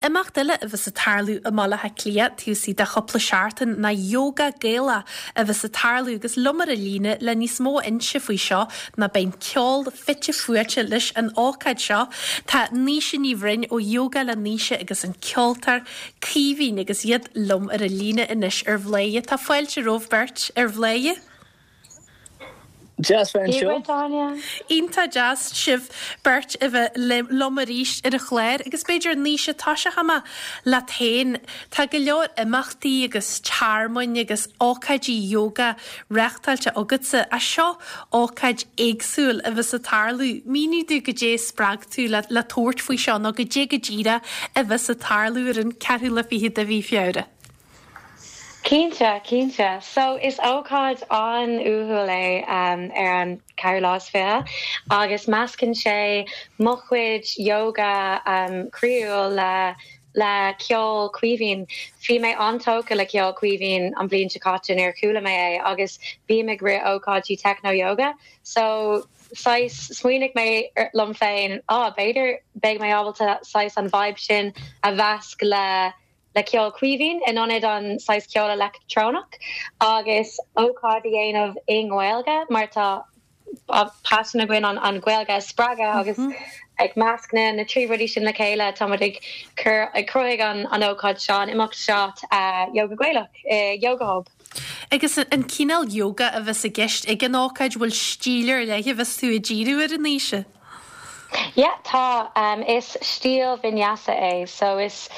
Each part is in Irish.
Imeacht eile a bheas ag tarlú i mBaile Átha Cliath taobh istigh de chúpla seachtain ná Yoga Gaelach a bheas ag tarlú agus liom ar an líne le níos mó a inse faoi seo nó beidh an ceol fite fuaite leis an ócáid seo. Tá Naoise Ní Bhroin ó Yoga le Naoise agus an ceoltóir Caoimhín agus iad liom ar an líne anois ar Bhladhaire. Tá fáilte romhaibh beirt ar Bhladhaire. Deas bheith anseo. Iontach deas sibh beirt a bheith liom arís ar an chlár agus b'fhéidir Naoise tosóidh mé leat féin. Tá go leor imeachtaí agus tearmainn agus ócáidí yoga reáchtáilte agatsa ach seo ócáid éagsúil a bheas ag tarlú. Mínigh domh goidé a spreag tú le tabhairt faoi seo nó goidé go díreach a bheas ag tarlú ar an ceathrú lá fichead de mhí Feabhra. Cinnte, cinnte. So, is ócáid an-uathúil é ar an ceathrú lá is fiche agus meascann sé mo chuid yoga croíúil le le ceol Caoimhín. Bhí mé an-tógtha le ceol Caoimhín an bhliain seo caite nuair a chuala mé é agus bím ag rith ócáidí techno yoga so saghas smaoinigh mé liom féin, ah b'fhéidir beidh mé ábalta saghas an vibe sin a mheasc le le ceol Caoimhín in ionad an saghas ceol leictreonach agus ócáid a dhéanamh i nGaeilge mar tá paisean againn an Ghaeilge a spreagadh agus ag measc na na trí rudaí sin le chéile tá muid ag cur ag cruthaigh an an ócáid seo an imeacht seo Yoga Gaelach i Yoga Hub. Agus an cineál yoga a bheas i gceist ag an ócáid, bhfuil stíl ar leith a bheas tú ag díriú air a Naoise? Yeah, tá. Is stíl vinyasa é, so is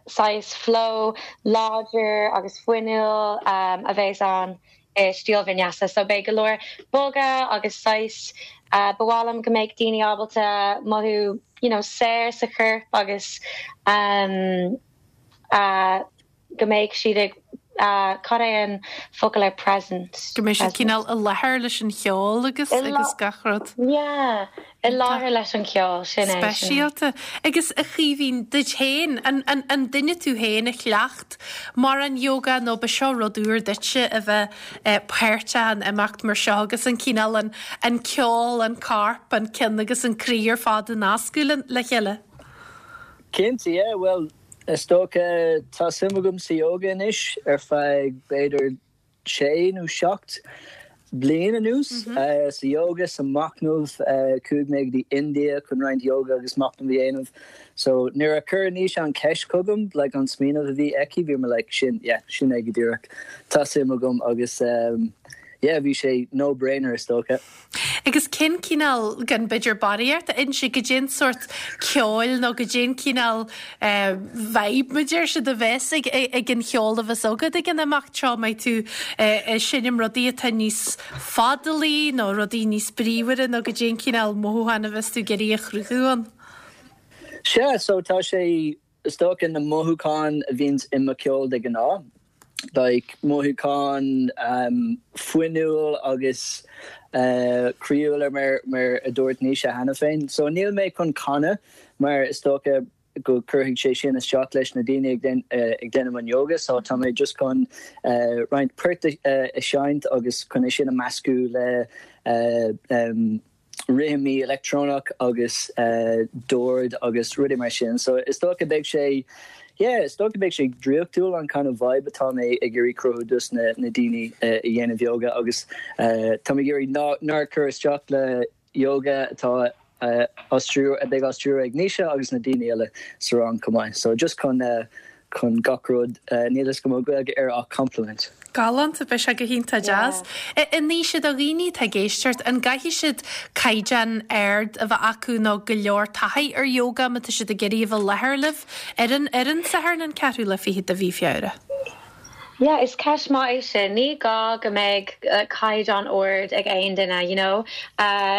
saghas flow láidir agus fuinniúil a bheas ann i stíl vinyasa. So beidh go leor bogadh agus saghas, ba mhaith liom go mbeadh daoine ábalta mothú you know saor sa chorp agus go mbeidh siad ag, cad é an focal ar present? Go mbeidh siad cineál i láthair leis an cheol agus agus gach rud. Yeah, i láthair leis an cheol, sin é. Speisialta. Agus a Chaoimhín, duit féin, an, an, an duine tú féin a chleacht mórán yoga nó ba seo rud úr duitse a bheith páirteach in imeacht mar seo agus an cineál, an, an ceol, an corp, an ceann agus an croí ar fad a nascadh le, le chéile? Cinnte, yeah, bhuel, Is dócha, tá suim agam sa yoga anois ar feadh b'fhéidir sé nó seacht bliain anuas. Sa yoga, sa machnamh, chuaigh mé go dtí India chun roinnt yoga agus machnamh a dhéanamh. So nuair a chuir Naoise an cheist chugam, like an smaoineamh a bhí aici, bhí mé like sin, yeah, sin é go díreach. Tá suim agam agus yeah, bhí sé no brainer is dócha. Agus cén cineál, gan b'fhéidir barraíocht a inse, goidé an sórt ceoil nó goidé an cineál vibe, mar a deir siad, a bheas ag an cheol a bheas agat ag an imeacht seo? An mbeidh tú ag seinm rudaí atá níos fadalaí nó rudaí níos bríomhaire nó goidé an cineál mothúchán a bheas tú ag iarraidh a chruthú ann? Sea, so tá sé Is dócha na mothúcháin a bhíonns i mo cheol de ghnáth, like mothúcháin fuinniúil agus croíúil mar mar a dúirt Naoise cheana féin. So níl mé chun canadh mar is dócha go cuirfidh sé sin isteach leis na daoine ag déanamh an yoga so tá mé just chun roinnt poirt a seinnt agus chun é sin a meascadh le rithimí leictreonach agus dord agus rudaí mar sin. So is dócha beidh sé, yeah, is dócha beidh sé draíochtúil an kind of vibe atá mé ag iarraidh cruthú dos na na daoine a dhéanamh yoga agus tá mé ag iarraidh ná nár cur isteach le yoga atá á stiúradh, a beidh á stiúradh ag Naoise agus na daoine eile sa rang chomh maith. So just chun chun gach rud, níl fhios agam an bhfuil Gaeilge air ach complement. Galánta, beidh sé go hiontach deas. A Naoise, do dhaoine atá ag éisteacht, an gcaithfidh siad caighdeán ard a bheith acu nó go leor taithí ar yoga má tá siad ag iarraidh a bheith i láthair libh ar an ar an Satharn an ceathrú lá fichead de mhí Feabhra? Yeah, is ceist maith é sin. Ní gá go mbeidh caighdeán ard ag aon duine, you know.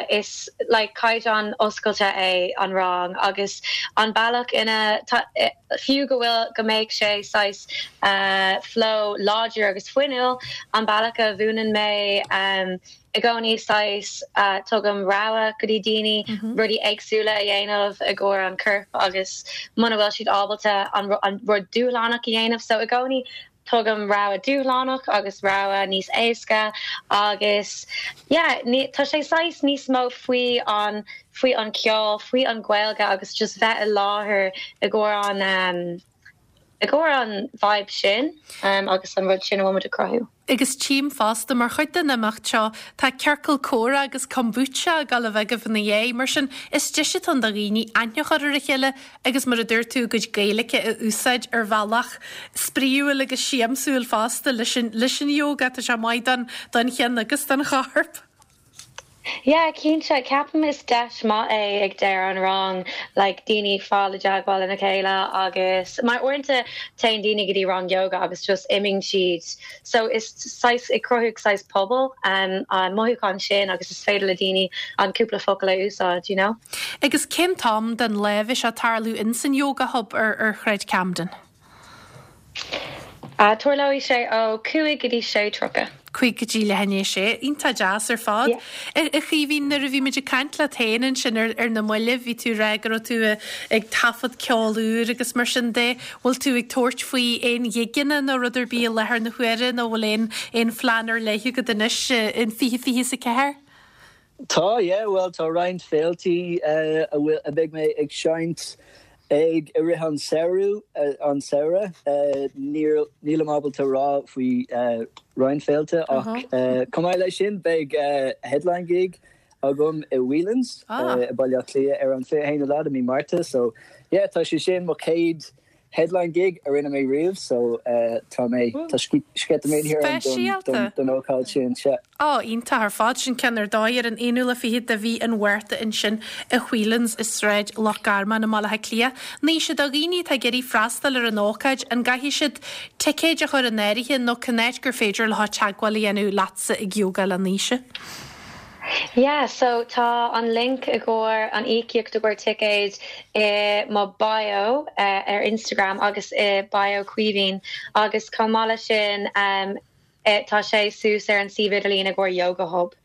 Is like caighdeán oscailte é an rang agus an bealach ina fiú go bhfuil go mbeidh sé saghas flow láidir agus fuinniúil, an bealach a mhúineann mé i gcónaí saghas tugaim rogha go dtí daoine rudaí éagsúla a dhéanamh i gcomhair an corp agus muna bhfuil siad ábalta an rud dúshlánach a dhéanamh so i gcónaí. Tugaim rogha dúshlánach agus rogha níos éasca agus yeah tá sé saghas níos mó faoi an faoi an ceol, faoi an Ghaeilge agus just bheith i láthair i gcomhair an i gcomhair an vibe sin agus an rud sin a bhfuil muid ag cruthú. Agus tchím fosta, mar chuid den imeacht seo, tá ciorcal comhrá agus kombucha ag dul a bheith agaibh ina dhiaidh. Mar sin, is deis atá ann do dhaoine aithne a chur ar a chéile agus, mar a dúirt tú, a gcuid Gaeilge a úsáid ar bhealach spraíúil agus siamsúil fosta leis an leis an yoga. Tá sé maith don don cheann agus don chorp. Yeah, cinnte. Ceapaim is deis maith é ag deireadh an rang like daoine fáil i dteagmháil lena chéile agus mar uaireanta téann daoine go dtí rang yoga agus just imíonn siad so is saghas ag cruthú saghas pobal um, an mothúchán sin agus is féidir le daoine an cúpla focal a úsáid, you know. Agus cén t-am den lá a bheidh sé ag tarlú ins an Yoga Hub ar ar Shráid Camden? Tarlóidh sé ó 5 go dtí 6:30. 5 go dtí leath i ndiaidh a sé. Iontach deas ar fad. A Chaoimhín, nuair a bhí muid ag caint leat féin ansin ar na mallaibh, bhí tú ag rá go raibh tú ag taifead ceol úr agus mar sin de. Bhfuil tú ag tabhairt faoi aon ghigeanna nó rud ar bith i láthair na huaire nó bhfuil aon aon phlean ar leith agat anois in 2024? Tá, yeah, bhuel tá roinnt féiltí a bhfuil, a bheidh mé ag seinnt ag i rith an samhradh, an samhradh. Níl, nílim ábalta rá faoi roinnt féilte ach chomh maith leis sin beidh headline gig agam i Whelan's i Baile Átha Cliath ar an 21ú lá de mí Márta so yeah tá sé sin mo chéad headline gig a rinne mé riamh so tá mé, tá sceitimíní orm don ócáid sin, sea. Á, iontach ar fad. Sin ceann ar dóigh ar an 21ú de mhí an Mhárta ansin i Whelan's i Sráid Loch Garman i mBaile Átha Cliath. Naoise, do dhaoine atá ag iarraidh freastal ar an ócáid, an gcaithfidh siad ticéid a chur in áirithe nó cén áit gur féidir leo teagmháil a dhéanamh leatsa ag Yoga le Naoise? Yeah, so tá an link i gcomhair an íocaíocht i gcomhair ticéid i mo bio ar Instagram agus i bio Caoimhín agus chomh maith leis sin tá sé suas ar an suíomh idirlín i gcomhair Yoga Hub.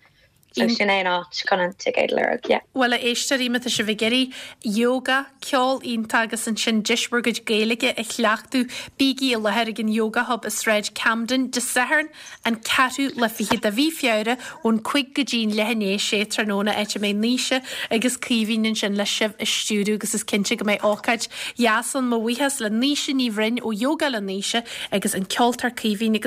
So sin é an áit chun an ticéad a lorg, yeah. Bhuel a éisteoirí, má tá sibh ag iarraidh yoga, ceol iontach agus ansin deis bhur gcuid Gaeilge a chleachtadh, bígí i láthair ag an Yoga Hub i Sráid Camden Dé Sathairn, an 24ú de mhí Feabhra ón 5 go dtí an leath i ndiaidh 6 tráthnóna áit a mbeidh Naoise agus Caoimhín ansin le sibh a stiúradh agus is cinnte go mbeidh ócáid dheas ann. Mo bhuíochas le Naoise Ní Bhroin ó Yoga le Naoise agus an ceoltóir Caoimhín agus.